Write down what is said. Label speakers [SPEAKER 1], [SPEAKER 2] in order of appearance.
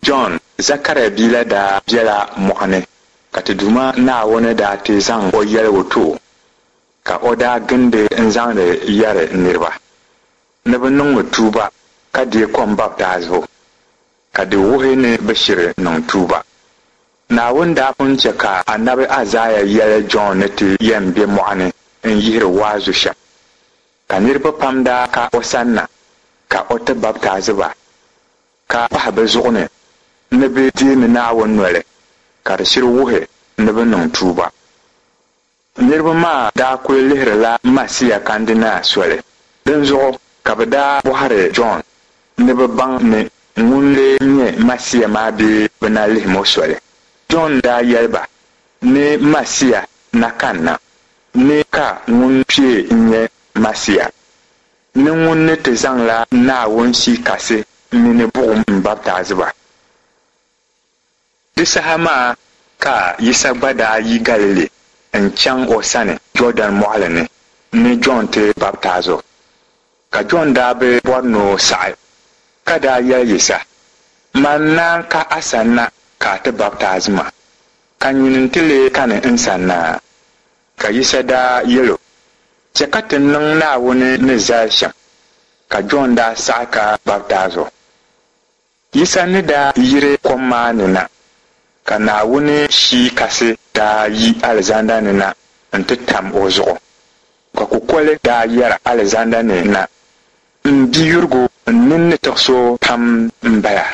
[SPEAKER 1] Jɔn, Zakaria bia la daa bela mɔɣu ni, ka ti Duuma Naawuni daa ti zaŋ o yɛligu ti o, ka o daa gindi n-zaŋdi yɛri niriba ni bɛ niŋmi tuuba ka deei kom baptaizibu, ka di wuhi ni bɛ shiri niŋ tuuba. Naawuni daa pun chɛ ka anabi Aizaia yɛli Jɔn ni ti yɛn be mɔɣu ni n-yihiri waazu shɛm. Ka niriba pam daa ka o sanna ka o ti baptaizi ba, ka pahi bɛ zuɣu ni ni bɛ deemi Naawuni noli, ka di shiri wuhi ni bɛ niŋ tuuba. Niriba maa daa kul lihirila Masia kandina soli, dinzuɣu ka bɛ daa bɔhiri Jɔn ni bɛ baŋ ni ŋun lee nyɛ Masia maa bee bɛ na lihim o soli. Jɔn daa yɛli ba ni Masia na kanna, ni ka ŋun kpee n-nyɛ Masia, ni ŋun ni ti zaŋla Naawuni Shii Kasi mini buɣim m-baptaizi ba. Di saha maa ka Yisa gba daa yi Galili n-chaŋ o sani Jɔɔdɛn Mɔɣili ni ni Jɔn ti baptaiz o. Ka Jɔn daa bi bɔri ni o saɣi, ka daa yɛli Yisa, Man naan ka a sanna ka a ti baptaizi ma, ka nyini nti lee kani n sanna? Ka Yisa daa yɛl o, Chɛ ka ti niŋ Naawuni ni zali shɛm. Ka Jɔn daa saɣi ka baptaiz o. Yisa ni daa yiri kom maa ni na, ka Naawuni Shii Kasi daa yi alizanda ni na nti tam o zuɣu, ka kukoli daa yɛra alizanda ni na, M biyurigu, n nini ni tiɣis o pam m-bala.